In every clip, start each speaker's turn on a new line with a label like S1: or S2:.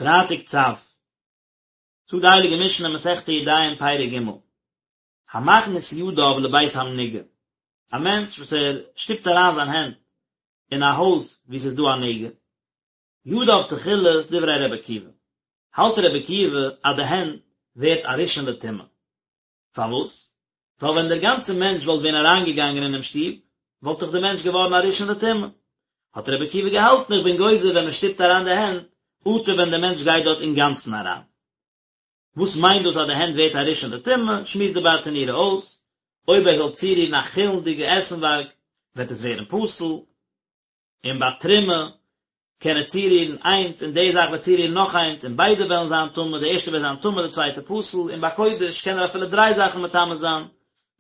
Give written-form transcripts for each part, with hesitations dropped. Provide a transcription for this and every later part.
S1: פרייטאג צו, זאגט די הייליגע משנה מסכת ידיים פרק ג', המכניס ידיו לבית המנוגע, א מענטש וואס ער שטופט אריין זיין הענט אין א הויז וואו ס'איז דא א נגע, ידיו תחילות דברי ר' עקיבא, האלט ר' עקיבא אז די הענט ווערט א ראשון לטומאה. פארוואס? ווייל ווען דער גאנצער מענטש וואלט ווען אריינגעגאנגען אינעם שטוב, וואלט דאך דער מענטש געווארן א ראשון לטומאה. האט רבי עקיבא געהאלטן איך בין גוזר ווען מען שטופט אריין די הענט, אטו ווען דער מענטש גייט דארט אינגאנצן אריין. וואס מיינט דאס אז די הענט ווערט א ראשון לטומאה? שמועסט די ברטנורא אויס, אויב ער זאל צורירן א חולין'דיגע עסנווארג, וועט עס ווערן פסול. און ביי תרומה קען ער צורירן איינס און די זאך וועט צורירן נאך איינס און ביידע וועלן זיין טמא, די ערשטע וועט זיין טמא די צווייטע פסול, און ביי קודש קען ער אפילו דריי זאכן מטמא זיין,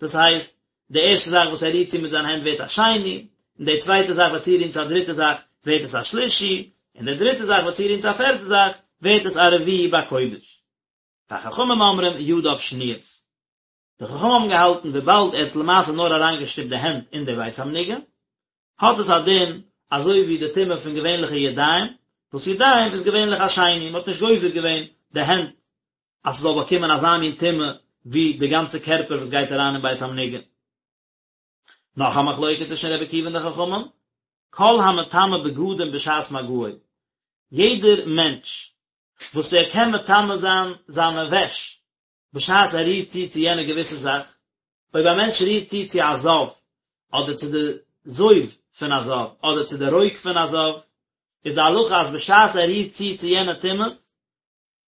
S1: דאס הייסט, די ערשטע זאך וואס ער רירט צו מיט זיין הענט ווערט א שני, און די צווייטע זאך וועט צורירן צו א דריטע זאך ווערט עס א שלישי, און די דריטע זאך וועט צורירן צו א פערטע זאך ווערט עס א רביעי ביי קודש. וחכמים אומרים ידיו שניות. די חכמים האבן געהאלטן וויבאלד ער האט למעשה נאר אריינגעשטופט די הענט אין די בית המנוגע, האט עס א דין אזוי ווי די טומאה פון געווענליכע ידיים, וואס ידיים איז געווענליך א שני, מען האט נישט גוזר געווען די הענט אז ס'זאל באקומען אזא מין טומאה ווי די גאנצע קערפער וואס גייט אריין אין בית המנוגע. נאך א מחלוקת צווישן רבי עקיבא און די חכמים, כל המטמא בגדים בשעת מגעו, יעדער מענטש וואס ער קען מטמא זיין זיינע וועש בשעת ער רירט צו צו יענע געוויסע זאך, אויב א מענטש רירט צו צו א זב, אדער צו די זוב פון א זב, אדער צו די רוק פון א זב, איז די הלכה אז בשעת ער רירט צו צו יענע טומאות,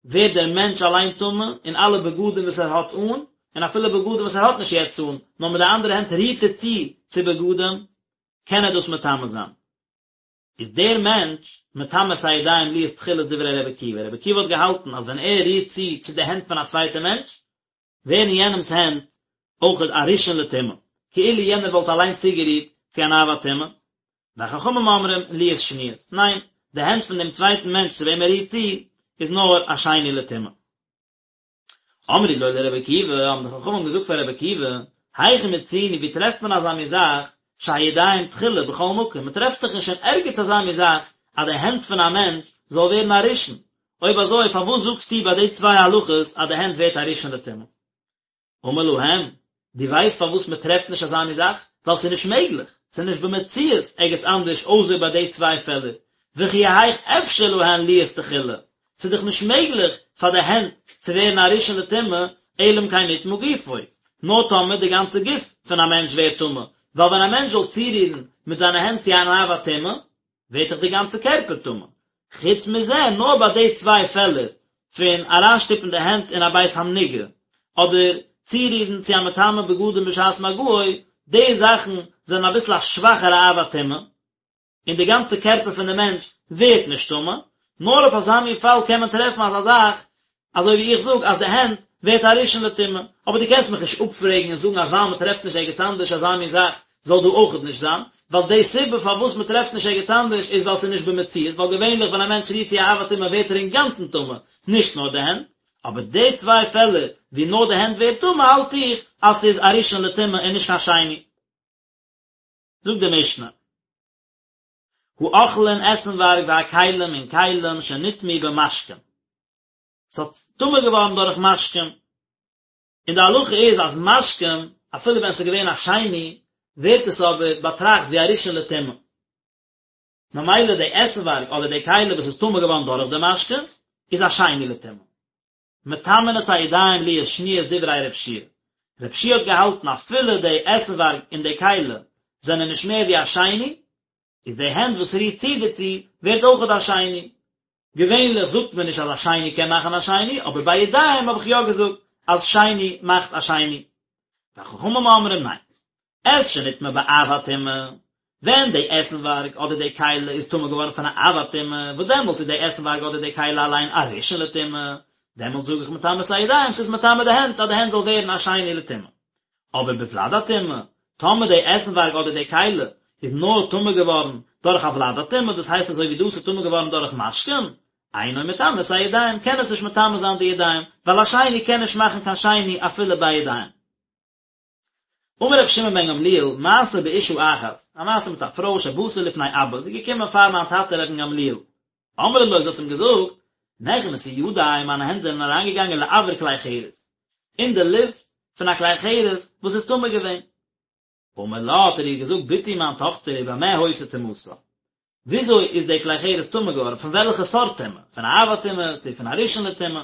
S1: ווערט דער מענטש אליין טמא, און אלע בגדים וואס ער האט אן, און אפילו בגדים וואס ער האט נישט יעצט אן, נאר מיט די אנדערע הענט רירט ער צו צו בגדים, קען ער דאס מטמא זיין. איז דער מענטש מטמא את הידיים להיות תחילות דברי רבי עקיבא, רבי עקיבא האט געהאלטן אז ווען ער רירט צו צו די הענט פון א צווייטע מענטש, ווערן יענעמס הענט אויכעט א ראשון לטומאה, כאילו יענער וואלט אליין צוגערירט צו אן אב הטומאה, וחכמים אומרים להיות שניות, ניין, די הענט פון דעם צווייטן מענטש צו וועם ער רירט צו, איז נאר א שני לטומאה. אמרו לו לרבי עקיבא, האבן די חכמים געזאגט פאר רבי עקיבא, היכן מצינו, ווי טרעפט מען אזא מין זאך, שהידיים תחילה בכל מקום, מען טרעפט דאך נישט אין ערגעץ אזא מין זאך, אז די הענט פון א מענטש זאל ווערן א ראשון, אויב אזוי פארוואס זאגסטו ביי די צוויי הלכות אז די הענט ווערט א ראשון לטומאה? אמר להם, דו ווייסט פארוואס מען טרעפט נישט אזא מין זאך? ווייל ס'איז נישט מעגליך, ס'איז נישט במציאות ערגעץ אנדערש אויסער ביי די צוויי פעלער, וכי היאך אפשר להן להיות תחילה, ס'איז דאך נישט מעגליך פאר די הענט צו ווערן א ראשון לטומאה, אלא אם כן נטמא גופו, נאר טאמער די גאנצע גוף פון א מענטש ווערט טמא, ווייל ווען א מענטש זאל צורירן מיט זיינע הענט צו אן אב הטומאה, ווערט דאך די גאנצע קערפער טמא. חוץ מזה, נאר ביי די צוויי פעלער פון אריינשטופן די הענט אין א בית המנוגע, אדער צורירן צו א מטמא בגדים בשעת מגעו, די זאכן זענען אביסל א שוואכערע אב הטומאה, און די גאנצע קערפער פון די מענטש ווערט נישט טמא, נאר אויף אזא מין פאל קען מען טרעפן אזא זאך, אזוי ווי איך זאג אז די הענט ווערט א ראשון לטומאה, אבער דו קענסט מיך נישט אפפרעגן און זאגן אז ווייל מען טרעפט נישט ערגעץ אנדערש אזא מין זאך זאל דא אויכעט נישט זיין, ווייל די סיבה פארוואס מען טרעפט נישט ערגעץ אנדערש איז ווייל ס'איז נישט במציאות, ווייל געווענליך ווען א מענטש רירט צו א אב הטומאה ווערט ער אינגאנצן טמא, נישט נאר די הענט, אבער די צוויי פעלער ווי נאר די הענט ווערט טמא האלט איך אז ס'איז א ראשון לטומאה און נישט קיין שני. זאגט די משנה. האוכלין עסנווארג והכלים און כלים שנטמאו במשקין. ס'האט טמא געווארן דורך משקים. און די הלכה איז אז משקים, אפילו ווען ס'איז געווען א שני, ווערט עס אבער באטראכט ווי א ראשון לטומאה. ממילא די עסנווארג אדער די כלי וואס איז טמא געווארן דורך די משקה, איז א שני לטומאה. מטמאין את הידיים להיות שניות דברי ר' יהושע. ר' יהושע האט געהאלטן אפילו די עסנווארג און די כלי זענען נישט מער ווי א שני, איז די הענט וואס רירט צו דערצו ווערט אויכעט א שני. געווענליך זאגט מען נישט אז א שני קען מאכן א שני, אבער ביי ידיים האב איך יא געזאגט אז שני מאכט א שני. וחכמים אומרים ניין. את שנטמא באב הטומאה, ווען די עסנווארג אדער די כלי איז טמא געווארן פון א אב הטומאה, וואס דעמאלטס איז די עסנווארג אדער די כלי אליין א ראשון לטומאה, דעמאלטס זאג איך מטמא את הידיים, ס'איז מטמא די הענט אז די הענט זאל ווערן א שני לטומאה. אבער בוולד הטומאה, טאמער די עסנווארג אדער די כלי איז נאר טמא געווארן דורך א ולד הטומאה, דאס הייסט אזוי ווי דאס איז טמא געווארן דורך משקים, אינו מטמא את הידיים, קען עס נישט מטמא זיין די ידיים, ווייל א שני קען נישט מאכן קיין שני אפילו ביי ידיים. אמר רבי שמעון בן גמליאל, מעשה באשה אחת, א מעשה מיט א פרוי שבאתה לפני אבא, זי איז געקומען פאר מיין טאטע רבן גמליאל. אמרה לו, זי האט אים געזאגט, נכנסו ידי, מיינע הענט זענען אריינגעגאנגען לאויר כלי חרס, אין די לופט פון א כלי חרס וואס איז טמא געווען. אמר לה, האט ער איר געזאגט, בתי מיין טאכטער, ובמה היתה טומאתה? וויאזוי איז די כלי חרס טמא געווארן, פון וועלכע סארט טומאה? פון א אב הטומאה, צו פון א ראשון לטומאה?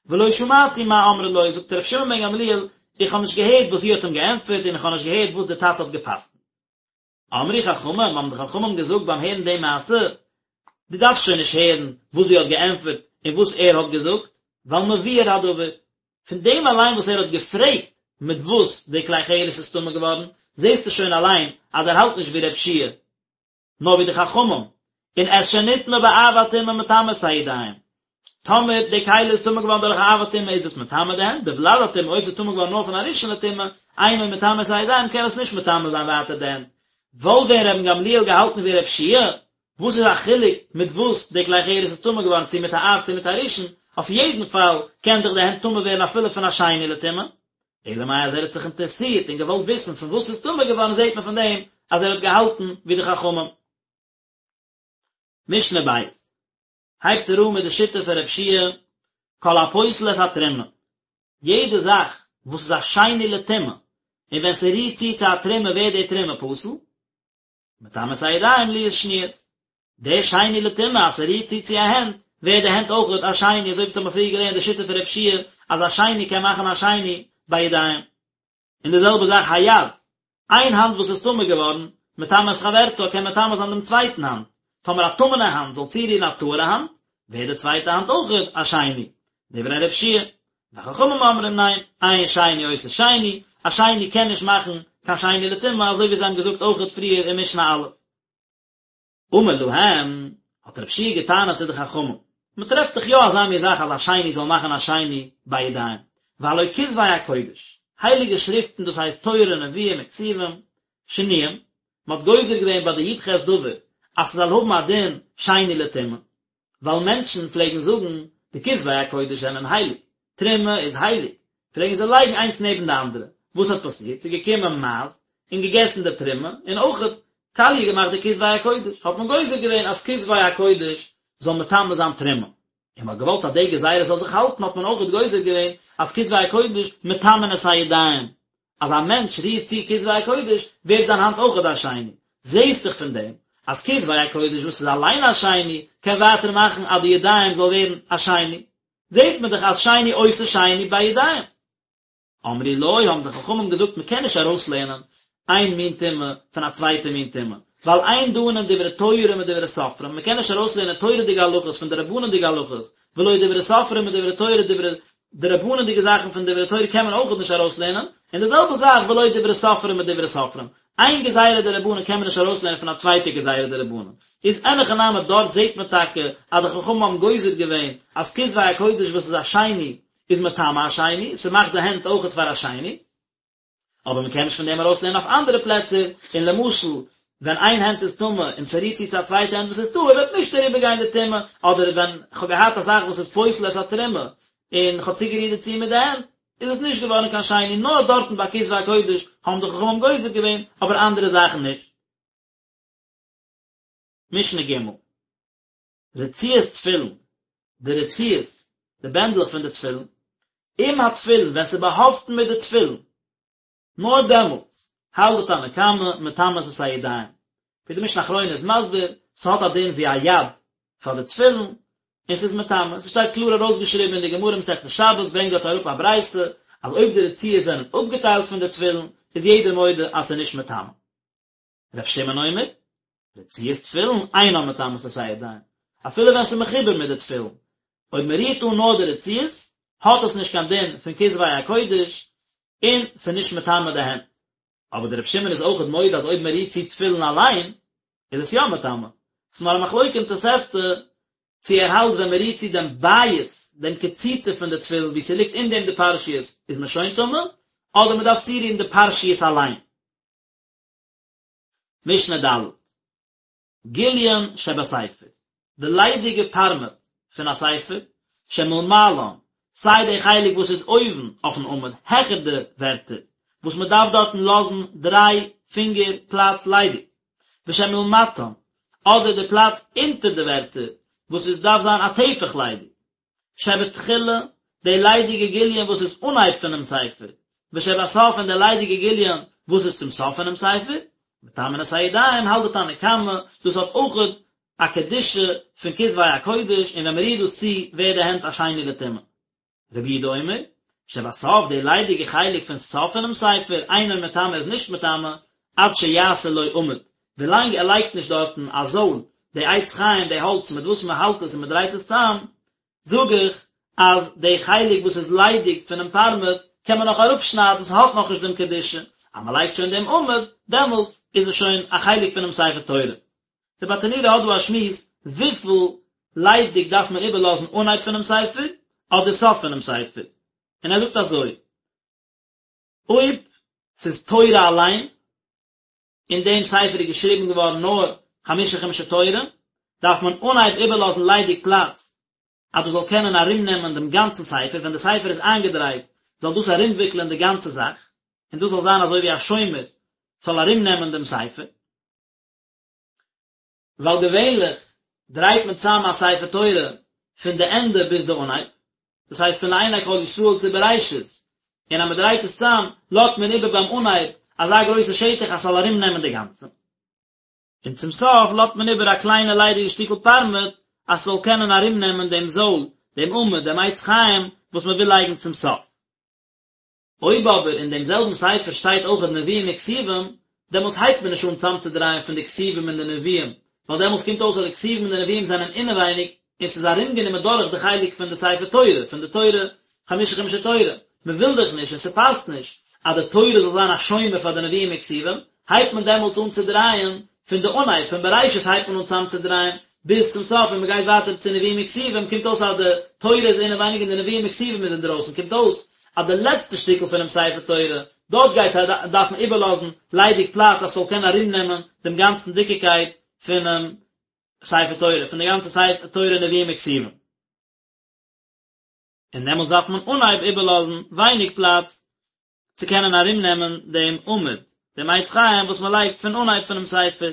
S1: ולא שמעתי מה אמרה לו, זאגט רבי שמעון בן גמליאל, איך האב נישט געהערט וואס זי האט אים געענטפערט און איך האב נישט געהערט וואס דער טאטע האט גע'פסק'נט. אמרו חכמים, האבן די חכמים געזאגט ביים הערן די מעשה, דו דארפסט שוין נישט הערן וואס זי האט געענטפערט און וואס ער האט געזאגט, ווייל מבואר הדבר, פון דעם אליין וואס ער האט געפרעגט מיט וואס די כלי חרס איז טמא געווארן, זעסטו שוין אליין אז ער האלט נישט ווי ר' יהושע נאר ווי די חכמים, און את שנטמא באב הטומאה מטמא את הידיים. טאמער די כלי איז טמא געווארן דורך א אב הטומאה איז עס מטמא די הענט, בוולד הטומאה אויב ס'איז טמא געווארן נאר פון א ראשון לטומאה, אינו מטמא את הידיים קען עס נישט מטמא זיין ווייטער די הענט. וואלט ווען רבן גמליאל געהאלטן ווי ר' יהושע, וואס איז א חילוק מיט וואס די כלי חרס איז טמא געווארן צו מיט א אב צו מיט א ראשון, אויף יעדן פאל קען דאך די הענט טמא ווערן אפילו פון א שני לטומאה. אלא מאי אז ער האט זיך אינטערעסירט און געוואלט וויסן פון וואס ס'איז טמא געווארן זעט מען פון דעם אז ער האט געהאלטן ווי די חכמים. משנה ב' הייבט ער אן מיט די שיטה פון ר' יהושע כל הפוסל את התרומה, יעדע זאך וואס איז א שני לטומאה און ווען ס'רירט צו צו א תרומה ווערט די תרומה פסול, מטמא את הידיים להיות שניות, די שני לטומאה אז ס'רירט צו צו א הענט, ווערט די הענט אויכעט א שני, אזוי ווי אונז האבן פריער געלערנט די שיטה פון ר' יהושע אז א שני קען מאכן א שני ביי ידיים. און די זעלבע זאך היד, איין האנט וואס איז טמא געווארן, מטמא את חברתה קען מטמא זיין דעם צווייטן האנט, טאמער א טמא'נע האנט זאל צורירן א טהור'ע האנט, ווערט די צווייטע האנט אויכעט א שני. דברי ר' יהושע וחכמים אומרים ניין, אין שני עושה שני, א שני קען נישט מאכן קיין שני לטומאה אזוי ווי זיי האבן געזאגט אויכעט פריער אין משנה א'. אמר להם, האט רב יהושע געטענה'ט צו די חכמים, מען טרעפט דאך יא אזא מין זאך אז א שני זאל מאכן א שני ביי ידיים, והלא כתבי הקודש, הייליגע שריפטן דאס הייסט תורה נביאים און כתובים, שנויים, מען האט גוזר געווען ביי די י"ח דבר אז ס'זאל האבן א דין שני לטומאה, ווייל מענטשן פלעגן זאגן די כתבי הקודש זענען הייליג, תרומה איז הייליג, פלעגן זיי לייגן איינס נעבן די אנדערע, וואס האט פאסירט? ס'איז געקומען מייז און געגעסן די תרומה, און אויכעט קאליע געמאכט די כתבי הקודש, האט מען גוזר געווען אז כתבי הקודש זאל מטמא זיין תרומה, און מ'האט געוואלט אז די גזירה זאל זיך האלטן האט מען אויכעט גוזר געווען אז כתבי הקודש מטמאין את הידיים, אז א מענטש רירט צו כתבי הקודש ווערט זיין האנט אויכעט א שני, זעהסט דאך פון דעם אז כתבי הקודש וואס איז אליין א שני קען ווייטער מאכן אז די ידיים זאל ווערן א שני, זעהט מען דאך אז שני עושה שני בידיים. אמרו לו, האבן די חכמים געזאגט מען קען נישט ארויסלערנען איין מין טומאה פון א צווייטע מין טומאה, ווייל אין דנין דברי תורה מדברי סופרים, מען קען נישט ארויסלערנען תורה'דיגע הלכות פון דרבנן'דיגע הלכות, ולא דברי סופרים מדברי תורה דברי דרבנן'דיגע זאכן פון דברי תורה קען מען אויכעט נישט ארויסלערנען, און די זעלבע זאך ולא דברי סופרים מדברי סופרים, איין גזירה דרבנן קען מען נישט ארויסלערנען פון א צווייטע גזירה דרבנן, איז אין הכי נמי דארט זעט מען טאקע אז די חכמים האבן גוזר געווען אז כתבי הקודש וואס איז א שני איז מטמא א שני, ס'מאכט די הענט אויכעט פאר א שני. אבער מען קען נישט פון דעם ארויסלערנען אויף אנדערע פלעצער, און למשל ווען איין הענט איז טמא און ס'רירט צו צו א צווייטע הענט וואס איז טהור וועט נישט אריבערגיין די טומאה, אדער ווען כ'האב געהאט א זאך וואס איז פוסל את התרומה און כ'האב צוגערירט דערצו מיט די הענט, איז עס נישט געווארן קיין שני, נאר דארטן ביי כתבי הקודש האבן די חכמים גוזר געווען, אבער אנדערע זאכן נישט. משנה ג'. רצועות תפילין, די רצועות, די בענדלעך פון די תפילין, עם התפילין, ווען ס'איז באהאפטן מיט די תפילין, נאר דעמאלטס, האלט די תנא קמא, מטמאות את הידיים. ווי די משנה אחרונה איז מסביר, ס'האט א דין ווי א יד פאר די תפילין, און ס'איז מטמא. ס'שטייט קלאר ארויסגעשריבן אין די גמרא מסכת שבת, ברענגט דארט אראפ א ברייתא, אז אויב די רצועות זענען אפגעטיילט פון די תפילין, איז יעדער מודה אז ס'איז נישט מטמא. ר' שמעון אומר, רצועות תפילין אינן מטמאות את הידיים, אפילו ווען ס'איז מחובר מיט די תפילין, אויב מען רירט אן נאר די רצועות, האט עס נישט קיין דין פון כתבי הקודש, און ס'איז נישט מטמא די הענט. אבער דער ר' שמעון איז אויכעט מודה אז אויב מען רירט צו תפילין אליין, איז עס יא מטמא. ס'איז נאר א מחלוקה אין תוספתא, צו ער האלט ווען מען רירט צו דעם בית, דעם קציצה פון די תפילין וואו ס'ליגט אין דעם די פרשיות, איז מען שוין טמא, אדער מען דארף צורירן די פרשיות אליין. משנה ד', גיליון שבספר, די ליידיגע פארמעט פון א ספר, שמלמעלן, סיי די חלק וואס איז אויבן אויפן עמוד העכער די ווערטער, וואס מען דארף דארטן לאזן דריי פינגער פלאץ ליידיג, ושמלמטן, אדער די פלאץ אונטער די ווערטער, וואס עס דארף זיין א טפח ליידיג. שבתחילה, די ליידיגע גיליון וואס איז אנהייב פונעם ספר, ושבסוף און די ליידיגע גיליון וואס איז צום סוף פונעם ספר, מטמאין את הידיים האלט די תנא קמא, דאס האט אויכעט א קדושה פון כתבי הקודש און ווען מען רירט דאס צו ווערט די הענט א שני לטומאה. רבי יהודה אומר, שבסוף די ליידיגע חלק פון סוף פונעם ספר, אינו מטמא איז נישט מטמא, עד שיעשה לו עמוד, ווילאנג ער לייגט נישט דארטן א זויל, די עץ חיים, די האלץ מיט וואס מען האלט עס און מען דרייט עס צאם, זאג איך אז די חלק וואס איז ליידיג פונעם פארמעט קען מען נאך אראפשניידן, ס'האט נאכנישט דעם קדושה, אז מען לייגט שוין דעם עמוד, דעמאלטס איז עס שוין א חלק פונעם ספר תורה. די ברטנורא האט דא א שמועס וויפיל ליידיג דארף מען איבערלאזן אנהייב פונעם ספר אדער סוף פונעם ספר, און ער זאגט אזוי, אויב ס'איז תורה אליין, אין דעם ספר איז געשריבן געווארן נאר חמשה חומשי תורה, דארף מען אנהייב איבערלאזן ליידיג פלאץ אז דאס זאל קענען ארומנעמען דעם גאנצן ספר, ווען די ספר איז איינגעדרייט זאל דאס ארומוויקלען די גאנצע זאך, און דאס זאל זיין אזוי ווי א שומר ס'זאל ארומנעמען דעם ספר. ווייל געווענליך דרייט מען צאם א ספר תורה פון די ענדע ביז די אנהייב, דאס הייסט פון לעיני כל ישראל צו בראשית, און אז מען דרייט עס צאם לאזט מען איבער ביים אנהייב אזא גרויסע שטח אז ס'זאל ארום נעמען די גאנצע, און צום סוף לאזט מען איבער א קליינע ליידיגע שטיקל פארמעט אז ס'זאל קענען ארום נעמען דעם זויל, דעם עמוד, דעם עץ חיים וואס מען וויל לייגן צום סוף. אויב אבער אין דעם זעלבן ספר שטייט אויכעט נביאים און כתובים, דעמאלטס הייבט מען נישט אן צאמצודרייען פון די כתובים און די נביאים, ווייל דעמאלטס קומט אויס אז די כתובים און די נביאים זענען אינעווייניג און ס'איז ארומגענומען דורך די חלק פון די ספר תורה, פון די תורה, חמשה חומשי תורה. מ'וויל דאך נישט און ס'פאסט נישט אז די תורה זאל זיין א שומר פאר די נביאים און כתובים, הייבט מען דעמאלטס אן צו דרייען פון די אנהייב, פון בראשית הייבט מען אן צאמצודרייען ביז צום סוף און מ'גייט ווייטער צו נביאים און כתובים, קומט אויס אז די תורה איז אינעווייניג און די נביאים און כתובים איז אינדרויסן, קומט אויס אז די לעצטע שטיקל פונעם ספר תורה, דארט גייט ער דארפן איבערלאזן ליידיג פלאץ אז ס'זאל קענען ארומנעמען דעם גאנצן דיקיקייט פונעם ספר תורה, פון די גאנצע ספר תורה נביאים וכתובים. און דעמאלטס דארף מען אנהייב איבערלאזן ווייניג פלאץ צו קענען ארומנעמען דעם עמוד, דעם עץ חיים וואס מען לייגט פון אנהייב פונעם ספר.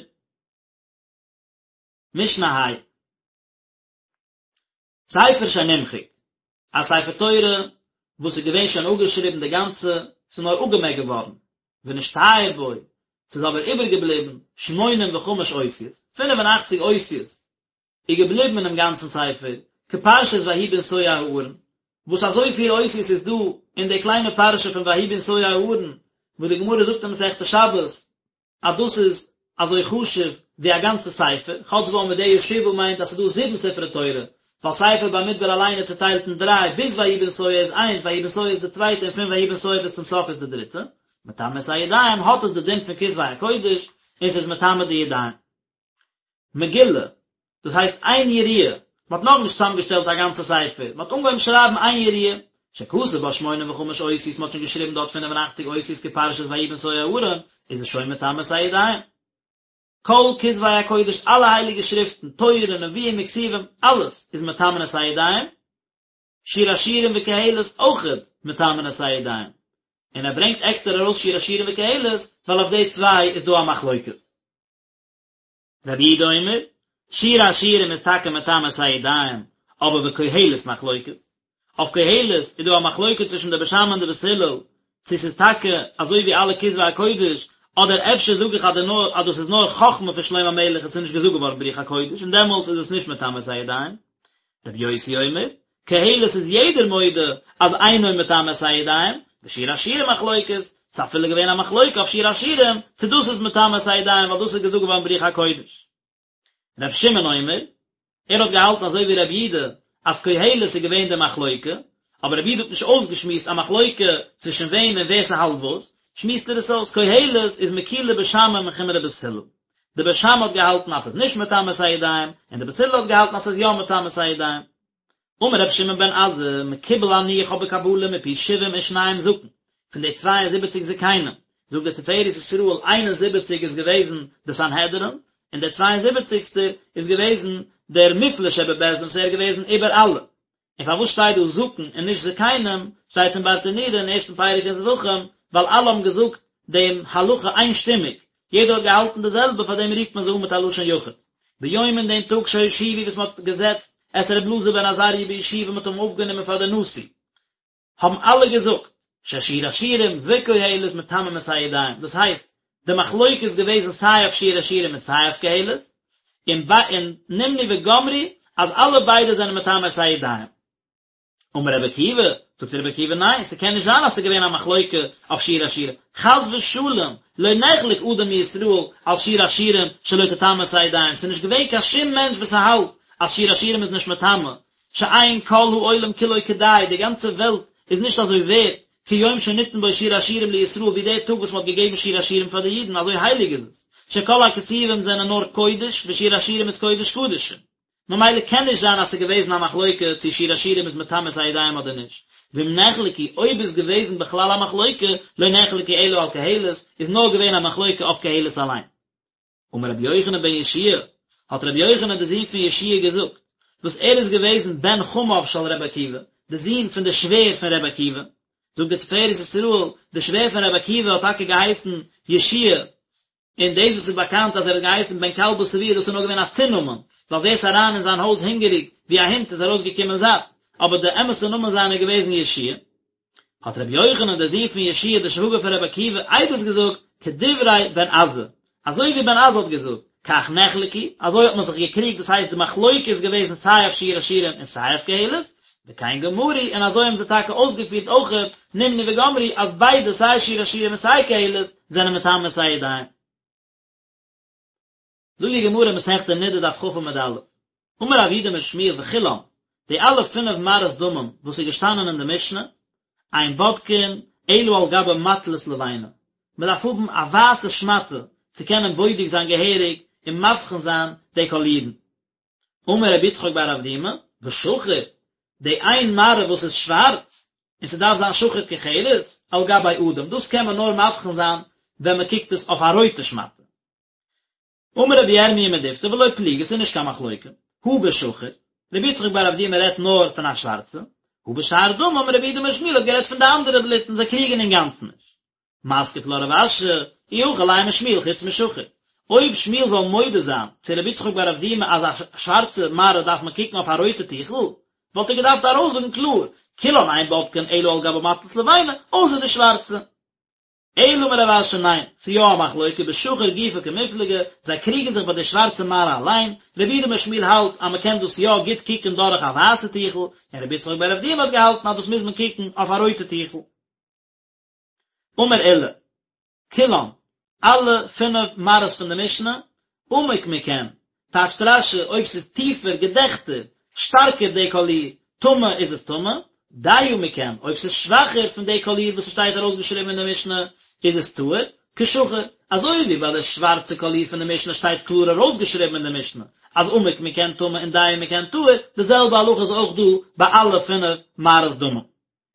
S1: משנה ה'. ספר שנמחק, א ספר תורה וואס איז געווען שוין אפגעשריבן די גאנצע, ס'איז נאר אפגעמעקט געווארן, ונשתייר בו, ס'איז אבער איבערגעבליבן שמונים וחמש אותיות, פינף און אכציג אותיות איז געבליבן אינעם גאנצן ספר, כפרשת ויהי בנסוע הארון, וואס אזויפיל אותיות איז דא אין די קליינע פרשה פון ויהי בנסוע הארון, וואס די גמרא זאגט אין מסכת שבת, אז דאס איז אזוי חשוב ווי א גאנצע ספר, כאטש ועמודיה שבעה מיינט אז ס'איז דא זיבן ספרי תורה, ווייל ספר במדבר אליין איז צוטיילט אין דריי, ביז ויהי בנסוע איז איינס, ויהי בנסוע איז די צווייטע און פון ויהי בנסוע ביז צום סוף איז די דריטע. מטמא את הידיים האט עס די דין פון כתבי הקודש, און ס'איז מטמא די ידיים. מגילה, דאס הייסט איין יריעה, מען האט נאכנישט צוזאמגעשטעלט א גאנצע ספר, מען האט אנגעהויבן שרייבן איין יריעה, שכתב בה שמונים וחמש אותיות, מען האט שוין געשריבן דארט 85 אותיות כפרשת ויהי בנסוע הארון, איז עס שוין מטמא את הידיים. כל כתבי הקודש, אלע הייליגע שריפטן, תורה, נביאים וכתובים, אלעס איז מטמאין את הידיים, שיר השירים וקהלת אויכעט מטמאין את הידיים, און ער ברענגט עקסטער ארויס שיר השירים וקהלת, ווייל אויף די צוויי איז דא א מחלוקת. רבי יהודה אומר, שיר השירים איז טאקע מטמא את הידיים, אבער וקהלת מחלוקת. אויף קהלת איז דא א מחלוקת צווישן די בית שמאי און די בית הלל, צו ס'איז טאקע אזוי ווי אלע כתבי הקודש, אדער אפשר זאג איך אז די נאר אז דאס איז נאר חכמה פון שלמה המלך און ס'איז נישט געזאגט געווארן ברוח הקודש און דעמאלטס איז עס נישט מטמא את הידיים. רבי יוסי אומר, קהלת איז יעדער מודה אז אינו מטמא את הידיים, ושיר השירים מחלוקת, ס'איז אפילו געווען א מחלוקה אויף שיר השירים צו דאס איז מטמא את הידיים ווייל דאס איז געזאגט געווארן ברוח הקודש. רבי שמעון אומר, ער האט געהאלטן אזוי ווי רבי יהודה אז קהלת איז געווען די מחלוקה, אבער רבי יהודה האט נישט אויסגעשמועסט א מחלוקה צווישן וועם און ווער ס'האלט וואס, שמועסט ער עס אויס, קהלת איז מקולי בית שמאי מחומרי בית הלל. די בית שמאי האט געהאלטן אז ס'איז נישט מטמא את הידיים, און די בית הלל האט געהאלטן אז ס'איז יא מטמא את הידיים. אמר רבי שמעון בן עזאי, מקובל אני איך האב בקבלה מפי שבעים ושניים זקן, פון די צוויי און זיבעציק זקנים, זאגט דער תפארת ישראל, איין און זיבעציק איז געוועזן די סנהדרין, און דער צוויי און זיבעציקסטער איז געוועזן דער מופלא שבבית דין וואס ער איז געוועזן איבער אלע. און פארוואס שטייט דא זקן און נישט זקנים, שטייט אין ברטנורא אין ערשטן פרק אין זבחים, ווייל אלע האבן געזאגט דעם הלכה איינשטימיג, יעדער האט געהאלטן די זעלבע, פאר דעם רופט מען זיי אן מיט א לשון יחיד. ביום אין דעם טאג שהושיבו וואס מען האט געזעצט. את ר' אלעזר בן עזריה בישיבה מ'האט אים אויפגענומען פאר די נשיא, האבן אלע געזאגט, ששיר השירים וקהלת מטמאים את הידיים, דאס הייסט, די מחלוקת איז געוועזן סיי אויף שיר השירים און סיי אויף קהלת, און און נמנו וגמרו אז אלע ביידע זענען מטמא את הידיים. אמר רבי עקיבא, זאגט רבי עקיבא ניין, ס'קען נישט זיין אז ס'איז געווען א מחלוקה אויף שיר השירים, חס ושלום, לא נחלק אדם מישראל על שיר השירים שלא תטמא את הידיים, ס'איז נישט געווען קיין שום מענטש וואס האלט אז שיר השירים איז נישט מטמא, שאין כל העולם כולו כדאי, די גאנצע וועלט איז נישט אזוי ווערט, כיום שניתן בו שיר השירים לישראל ווי דער טאג וואס מ'האט געגעבן שיר השירים פאר די אידן, אזוי הייליג איז עס, שכל הכתובים זענען נאר קודש, ושיר השירים איז קודש קדשים. ממילא קען נישט זיין אז ס'איז געוועזן א מחלוקה צו שיר השירים איז מטמא את הידיים אדער נישט, ואם נחלקו, אויב איז געוועזן בכלל א מחלוקה, לא נחלקו אלא על קהלת, איז נאר געווען א מחלוקה אויף קהלת אליין. אמר רבי יוחנן בן יהושע האט רבי יוחנן דער זון פון יהושע געזאגט, וואס ער איז געוועזן בן חמיו של רבי עקיבא, די זון פון די שווער פון רבי עקיבא, זאגט דער תפארת ישראל, די שווער פון רבי עקיבא האט טאקע געהייסן יהושע און דאס וואס איז באקאנט אז ער האט געהייסן בן כלבא שבוע דאס איז נאר געווען א צונאמען, ווייל ווער ס'איז אריין אין זיין הויז הונגעריג ווי א הונט איז ארויסגעקומען זאט, אבער די אמת'ע נאמען זיינע איז געוועזן יהושע. האט רבי יוחנן דער זון פון יהושע דער שוואגער פון רבי עקיבא עדות געזאגט כדברי בן עזאי, אזוי ווי בן עזאי האט געזאגט, כך נחלקו, אזוי האט מען זיך געקריגט, דאס הייסט די מחלוקה איז געוועזן סיי אויף שיר השירים און סיי אויף קהלת, וכן גמרו, און אזוי האבן זיי טאקע אויסגעפירט אויכעט, נמנו וגמרו, אז ביידע סיי שיר השירים און סיי קהלת זענען מטמא את הידיים. זאגט די גמרא מסכת נדה דף כ עמוד א', אמר רב יהודה אמר שמואל וכולם, די אלע פינף מראות דמים וואס איז געשטאנען אין די משנה, אין בודקין אלא על גבי מטלית לבנה, מען דארף האבן א ווייסע שמאטע צו קענען בודק זיין געהעריג און מבחין זיין די קאלירן. אמר רבי יצחק בר אבדימי, ושחור, די איין מראה וואס איז שווארץ, און ס'דארף זיין שחור כחרת, על גבי אדום, דאס קען מען נאר מבחין זיין ווען מען קוקט עס אויף א רויטע שמאטע. אמר רבי ירמיה מדפתי ולא פליגי, ס'איז נישט קיין מחלוקה, הא בשחור, רבי יצחק בר אבדימי רעדט נאר פון א שווארצע, הא בשאר דמים, רב יהודה אמר שמואל האט גערעדט פון די אנדערע בלוטן, זיי קריגן אינגאנצן נישט. מתקיף לה רב אשי, אי הכי לימא שמואל חוץ משחור. אויב שמואל זאל מודה זיין צו רבי יצחק בר אבדימי אז א שווארצע מראה דארף מען קוקן אויף א רויטע טיכל, וואלט ער געדארפט ארויסזאגן קלאר, כולן אין בודקין אלא על גבי מטלית לבנה, אויסער די שווארצע. אלא אמר רב אשי ניין, ס'איז יא א מחלוקה, בשחור גופא קמיפלגי, זיי קריגן זיך ביי די שווארצע מראה אליין, רב יהודה אמר שמואל האלט אז מ'קען דאס יא גוט קוקן דורך א ווייסע טיכל, און רבי יצחק בר אבדימי האט געהאלטן אז דאס מוז מען קוקן אויף א רויטע טיכל. אמר עולא, כולן, אלע פינף מראות פון די משנה, עמוק מכן, טייטשט רש"י, אויב ס'איז טיפער, געדעכטער, שטארקער די קאליר, טמא איז עס טמא, דיה מכן, אויב ס'איז שוואכער פון די קאליר וואס ס'שטייט ארויסגעשריבן אין די משנה, איז עס טהור, כשחור, אזוי ווי ביי די שווארצע קאליר פון די משנה שטייט קלאר ארויסגעשריבן אין די משנה, אז עמוק מכן טמא און דיה מכן טהור, די זעלבע הלכה איז אויך דא ביי אלע פינף מראות דמים.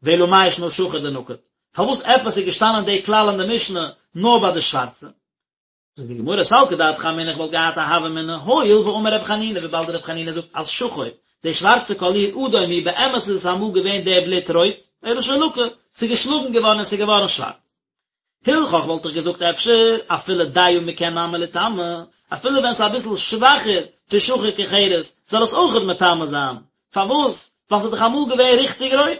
S1: ואלא מאי שנא שחור דנקט? פארוואס עפעס איז געשטאנען די כלל אין די משנה נאר ביי די שווארצע? זאגט די גמרא סלקא דעתך אמינא איך וואלט געהאט א הוה אמינא הואיל ואמר רבי חנינא וויבאלד רבי חנינא זאגט אז שחור די שווארצע קאליר אדום הוא באמת איז עס אמאל געווען די בלוט רויט אלא שלקה ס'איז געשלאגן געווארן און ס'איז געווארן שווארץ הלכך וואלט איך געזאגט אפשר אפילו דיה מכן נמי ליטמא, אפילו ווען ס'איז אביסל שוואכער פון שחור כחרת זאל עס אויכעט מטמא זיין, פארוואס? ווייל ס'איז דאך אמאל געווען ריכטיג רויט,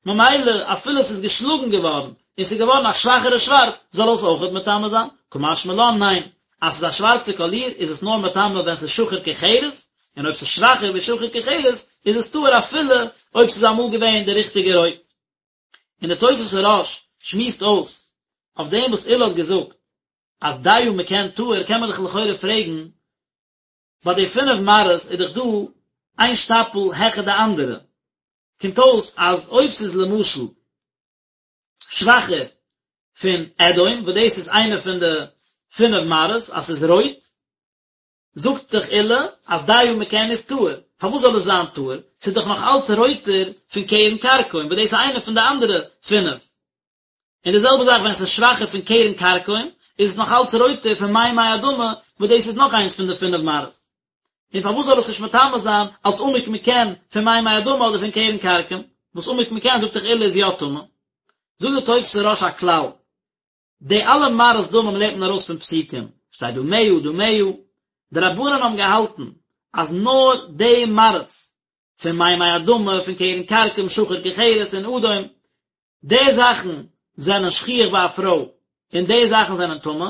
S1: ממילא אפילו ס'איז געשלאגן געווארן און ס'איז געווארן א שוואכערע שווארץ זאל עס אויכעט מטמא זיין, קא משמע לן ניין, אז ס'איז א שווארצע קאליר איז עס נאר מטמא ווען ס'איז שחור כחרת, און אויב ס'איז שוואכער ווי שחור כחרת איז עס טהור אפילו אויב ס'איז אמאל געווען די ריכטיגע רויט. און דער תוספות הרא"ש שמועסט אויס אויף דעם וואס עולא האט געזאגט אז דיה מכן טהור קען מען דאך לכאורה פרעגן, ביי די פינף מראות איז דאך דא איין שטאפל העכער די אנדערע, קומט אויס אז אויב ס'איז למשל שוואכער פון אדום וואס דאס איז איינע פון די פינף מראות אז ס'איז רויט, זאגט דאך עולא אז דיה מכן איז טהור, פארוואס זאל עס זיין טהור? ס'איז דאך נאך אלץ רויטער פון קרן כרכום וואס דאס איז איינע פון די אנדערע פינף. און די זעלבע זאך ווען עס איז שוואכער פון קרן כרכום איז עס נאך אלץ רויטער פון מימי אדמה וואס דאס איז נאך איינס פון די פינף מראות. און פארוואס זאל עס נישט מטמא זיין אלץ עמוק מכן פון מימי אדמה אדער פון קרן כרכום, וואס עמוק מכן זאגט דאך עולא איז יא טמא. זאגט די תוספות הרא"ש א כלל, די אלע מראות דמים לערנט מען ארויס פון פסוקים, שטייט דמיה דמיה, די רבנן האבן געהאלטן אז נאר די מראות. פון מימי אדמה, פון קרן כרכום, שחור כחרת און אדום, די זאכן זענען שכיח ביי א פרוי און די זאכן זענען טמא,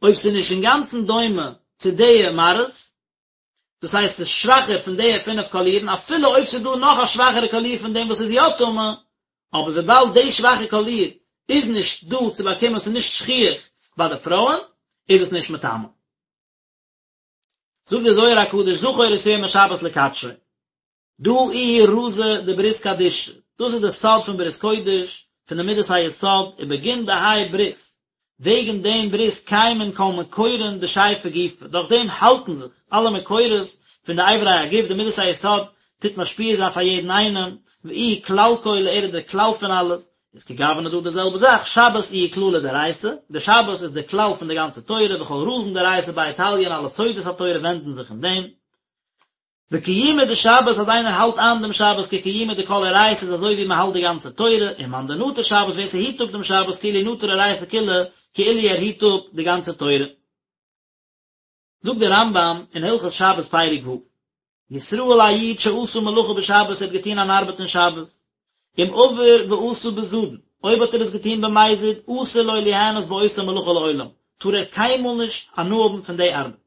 S1: אויב ס'איז נישט אינגאנצן דומה צו די מראות, דאס הייסט ס'איז שוואכער פון די פינף קאלירן, אפילו אויב ס'איז דא נאך א שוואכערע קאליר פון דעם וואס איז יא טמא, אבער וויבאלד די שוואכע קאליר איז נישט דא צו באקומען, ס'איז נישט שכיח ביי די פרויען, איז עס נישט מטמא. זאגט דער זוהר הקדוש זכור את יום השבת לקדשו. דא איהו רזא דברית קדישא, דאס איז די סוד פון ברית קודש, פון די מידת היסוד, ובגין דהאי ברית, וועגן דעם ברית קיימין כל מקורין דשייפי גופא, דורך דעם האלטן זיך אלע מקורות פון די אברי הגוף, די מידת היסוד טוט משפיע זיין פאר יעדן איינעם, ואיהו כלל כולא, ער איז דער כלל פון אלעס, איז כגוונא דא די זעלבע זאך, שבת איהו כללא דאורייתא, די שבת איז די כלל פון די גאנצע תורה, וכל רזין דאורייתא ביה תליין אלע סודות התורה ווענדן זיך אין דעם. וקיומא דשבת אז איינער האלט איין דעם שבת כקיומא דכל אורייתא איז אזוי ווי מען האלט די גאנצע תורה, און מאן דנטר שבת ווער ס'היט אפ דעם שבת כאילו נטר אורייתא כולא כאילו ער היט אפ די גאנצע תורה. זאגט דער רמב"ם אין הלכות שבת פרק ו', ישראל א איד שעשה מלאכה בשבת ער האט געטון אן ארבעט אין שבת, אם עבר ועשה בזדון, אויב האט ער עס געטון במזיד, אסור לו ליהנות באותה מלאכה לעולם, טאר ער קיינמאל נישט הנאה האבן פון די ארבעט.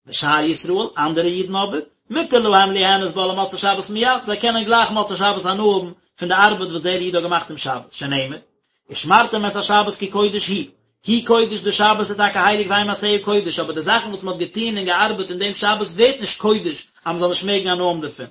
S1: ושאר ישראל, אנדערע אידן אבער, מותר להם ליהנות בה למוצאי שבת מיד, זיי קענען גלייך מוצאי שבת הנאה האבן פון די ארבעט וואס דער איד האט געמאכט אום שבת, שנאמר, ושמרתם את השבת כי קודש הוא, הוא קודש די שבת איז טאקע הייליג והם מעשיה קודש, אבער די זאכן וואס מען האט געטון און געארבעט אין דעם שבת ווערט נישט קודש אז מען זאל נישט מעגן הנאה האבן דערפון.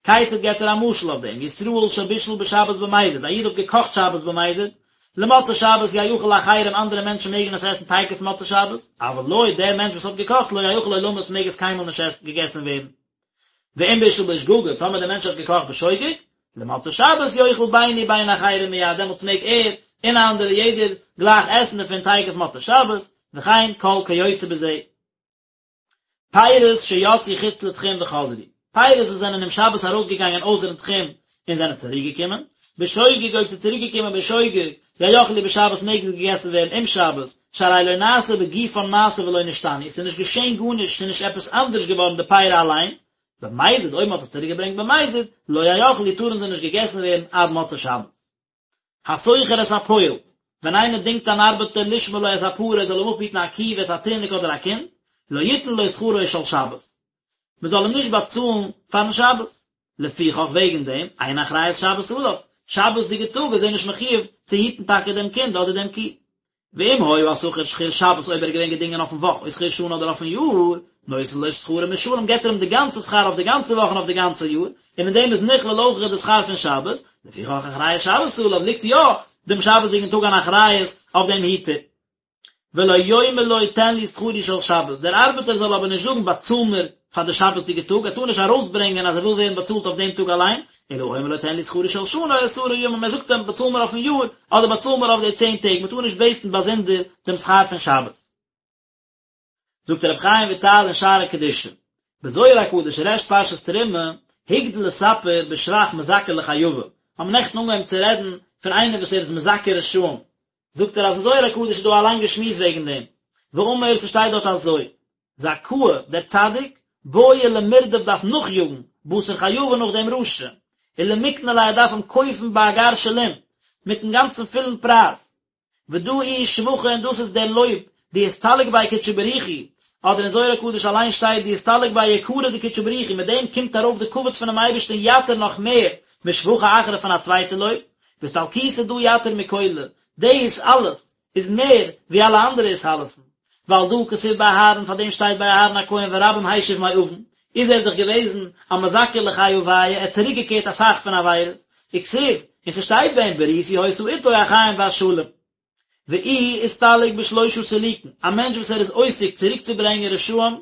S1: כיצד געבט ער א משל אויף דעם, ישראל שבישל בשבת במזיד, א איד האט געקאכט שבת במזיד, למוצאי שבת יאכל לאחרים אנדערע מענטשן מעגן עס עסן תיכף מוצאי שבת, אבל לו, דער מענטש וואס האט געקאכט לא יאכל עולמית מעג עס קיינמאל נישט עסן געגעסן ווערן. ואם בישל בשגגה, טאמער דער מענטש האט געקאכט בשוגג, למוצאי שבת יאכל בין הוא בין אחרים מיד, דעמאלטס מעג ער און אנדערע יעדער גלייך עסן דערפון תיכף מוצאי שבת, וכן כל כיוצא בזה. פירות שיצאו חוץ לתחום וחזרו, פירות וואס זענען אום שבת ארויסגעגאנגען אויסערן תחום און זענען צוריקגעקומען, בשוגג אויב ס'איז צוריקגעקומען בשוגג, יאכלו בשבת מעג עס געגעסן ווערן אום שבת, שהרי לא נעשה בגופן מעשה ולא נשתנו, ס'איז נישט געשען גארנישט, ס'איז נישט עפעס אנדערש געווארן די פירות אליין, במזיד אויב מ'האט עס צוריקגעברענגט במזיד, לא יאכלו טארן זיי נישט געגעסן ווערן עד מוצאי שבת. השוכר את הפועל, ווען איינער דינגט אן ארבעטער לשמור לו את הפרה ער זאל אים אפהיטן א קי ואת התינוק אדער א קינד, לא יתן לו שכרו של שבת, מען זאל אים נישט באצאלן פארן שבת, לפיכך וועגן דעם, אין אחריות שבת עליו, שבת'דיגע טאג איז ער נישט מחויב צו היטן טאקע דעם קינד אדער דעם קי. ואם היה השכיר שכיר שבת אויב ער איז געווען געדינגען אויפן וואך או שכיר שנה אדער אויפן יאר, נותן לו שכרו משלם געבט ער אים די גאנצע שכר אויף די גאנצע וואך און אויף די גאנצע יאר, און אין דעם איז נכלל אויך די שכר פון שבת, לפיכך אחריות שבת עליו ליגט יא דעם שבת'דיגן טאג אן אחריות אויף דעם היטער. ולא יאמר לו תן לי שכרי של שבת, דער ארבעטער זאל אבער נישט זאגן באצאל מיר פאר די שבת'דיגע טאג, ער טאר נישט ארויסברענגען אז ער וויל ווערן באצאלט אויף דעם טאג אליין, אלא אומר לו תן לי שכרי של שנה או עשרה ימים, ער זאגט אים באצאל מיר אויפן יאר, אדער באצאל מיר אויף די צען טעג, מען טאר נישט בעטן באזונדער דעם שכר פון שבת. זאגט רבי חיים וויטאל אין שערי קדושה, בזוהר הקדוש ריש פרשת תרומה, הגדיל לספר בשבח מזכה לחייבא, האבן נעכטן אנגעהויבן צו רעדן פון איינער וואס ער איז מזכה רשעים, זאגט ער אז אין זוהר הקדוש איז דא א לאנגע שמועס וועגן דעם, ואמר ס'שטייט דארט אזוי, זכאה, דער צדיק, בעי למרדף דארף נאכיאגן, בתר חייבא נאך דעם רשע, ולמקנא ליה ער דארף אים קויפן באגר שלים, מיטן גאנצן פולן פרייז, ודא איהו שבחא און דאס איז דער לויב, דאסתלק ביה קודשא בריך הוא, אדער אין זוהר הקדוש אליין שטייט דאסתלק ביה יקרא דקודשא בריך הוא, מיט דעם קומט ארויף די כבוד פונעם אייבערשטן יתיר נאך מער משבחא אחרא פון א צווייטע לויב, ואסתלקותא דא יתיר מכולא, דאס אלעס איז מער ווי אלע אנדערע התעלות'ן, ועל דא כתיב באהרן, פאר דעם שטייט ביי אהרן הכהן ורבים השיב מעון, איז ער דאך געוועזן א מזכה לחייביא, ער האט צוריק געקערט אסאך פון עבירות, וכתיב, און ס'שטייט ביי אים בריתי היתה אתו החיים והשלום. ואיהו אסתלק בשלושה סילוקין, א מענטש וואס ער איז עוסק צוריקצוברענגען רשעים,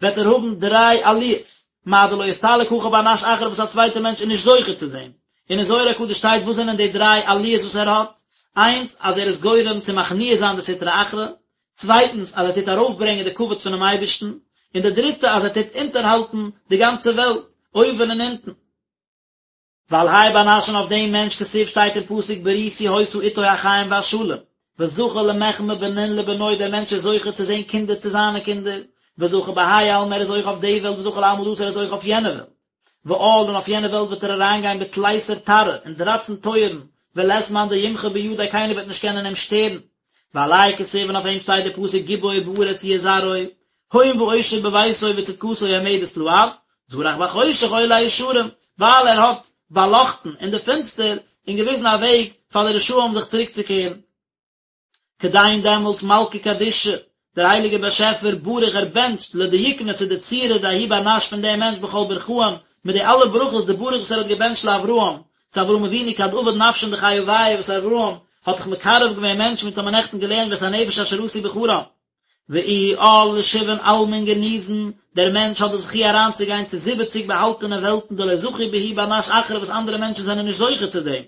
S1: וועט ער האבן דריי עליות, מה דלא אסתלק הכי בר נש אחרא וואס א צווייטער מענטש איז נישט זוכה צו דעם, און אין זוהר הקדוש שטייט וואס זענען די דריי עליות וואס ער האט, איינס אז ער איז גורם צו מכניע זיין די סטרא אחרא, צווייטנס אז ער טוט ארויפברענגען די כבוד פונעם אייבערשטן, און די דריטע אז ער טוט אונטערהאלטן די גאנצע וועלט, אויבן און אונטן. ועל האי בר נש און אויף דעם מענטש כתיב שטייט אין פסוק בריתי היתה אתו החיים והשלום, וזכה למחמי בנין לבנוי דער מענטש איז זוכה צו זען קינדער צו זיינע קינדער, וזכה בהאי עלמא ער איז זוכה אויף די וועלט וזכה לעלמא דאתי ער איז זוכה אויף יענע וועלט. ועאל און אויף יענע וועלט וועט ער אריינגיין בתליסר תרעי אין דרייצן טויערן, ולית מאן דימחי בידיה קיינער וועט נישט קענען אים שטערן. ועליה כתיב און אויף אים שטייט די פסוק גיבור בארץ יהיה זרעו, הון ועושר בביתו וצדקתו עומדת לעד, זרח בחושך אור לישרים, ווייל ער האט באלאכטן אין די פינסטער און געוויזן א וועג פאר די רשעים זיך צוריקצוקערן. כדין דעמאלטס מלכא קדישא, דער הייליגער באשעפער בריך ער בענטשט לדיוקנא צו די צורה דההוא בר נש פון דעם מענטש בכל ברכאן, מיט די אלע ברכות דבריך וואס ער האט געבענטשט לאברהם, צו אברהם אבינו כד עבד נפשין דחיויא וואס אברהם האט דאך מקרב געווען מענטשן ווי אונז האבן נעכטן געלערנט ואת הנפש אשר עשו בחרן. ואיהו עאל לשבעין עלמין גניזין, דער מענטש האט די זכי' אריינצוגיין צו זיבעציג באהאלטענע וועלטן דלא זכו בהו בר נש אחרא וואס אנדערע מענטשן זענען נישט זוכה צו דעם.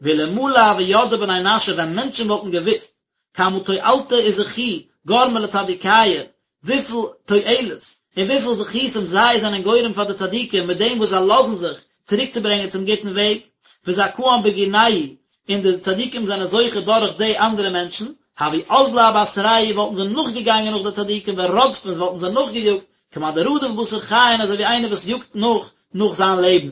S1: ואלמלא הוו ידעי בני נשא ווען מענטשן וואלטן געוואוסט כמה תועלתא וזכו גרמי לצדיקיא, וויפיל תועלת און וויפיל זכותים זיי זענען גורם פאר די צדיקים מיט דעם וואס זיי לאזן זיך צוריקצוברענגען צום גוטן וועג, וזכאן בגינייהו, און די צדיקים זענען זוכה דורך די אנדערע מענטשן, הוו אזלי בתרייהו וואלטן זיי נאכגעגאנגען נאך די צדיקים ורדפין וואלטן זיי נאכגעיאגט, כמאן דרדיף בתר חיין אזוי ווי איינער וואס יאגט נאך נאך זיין לעבן.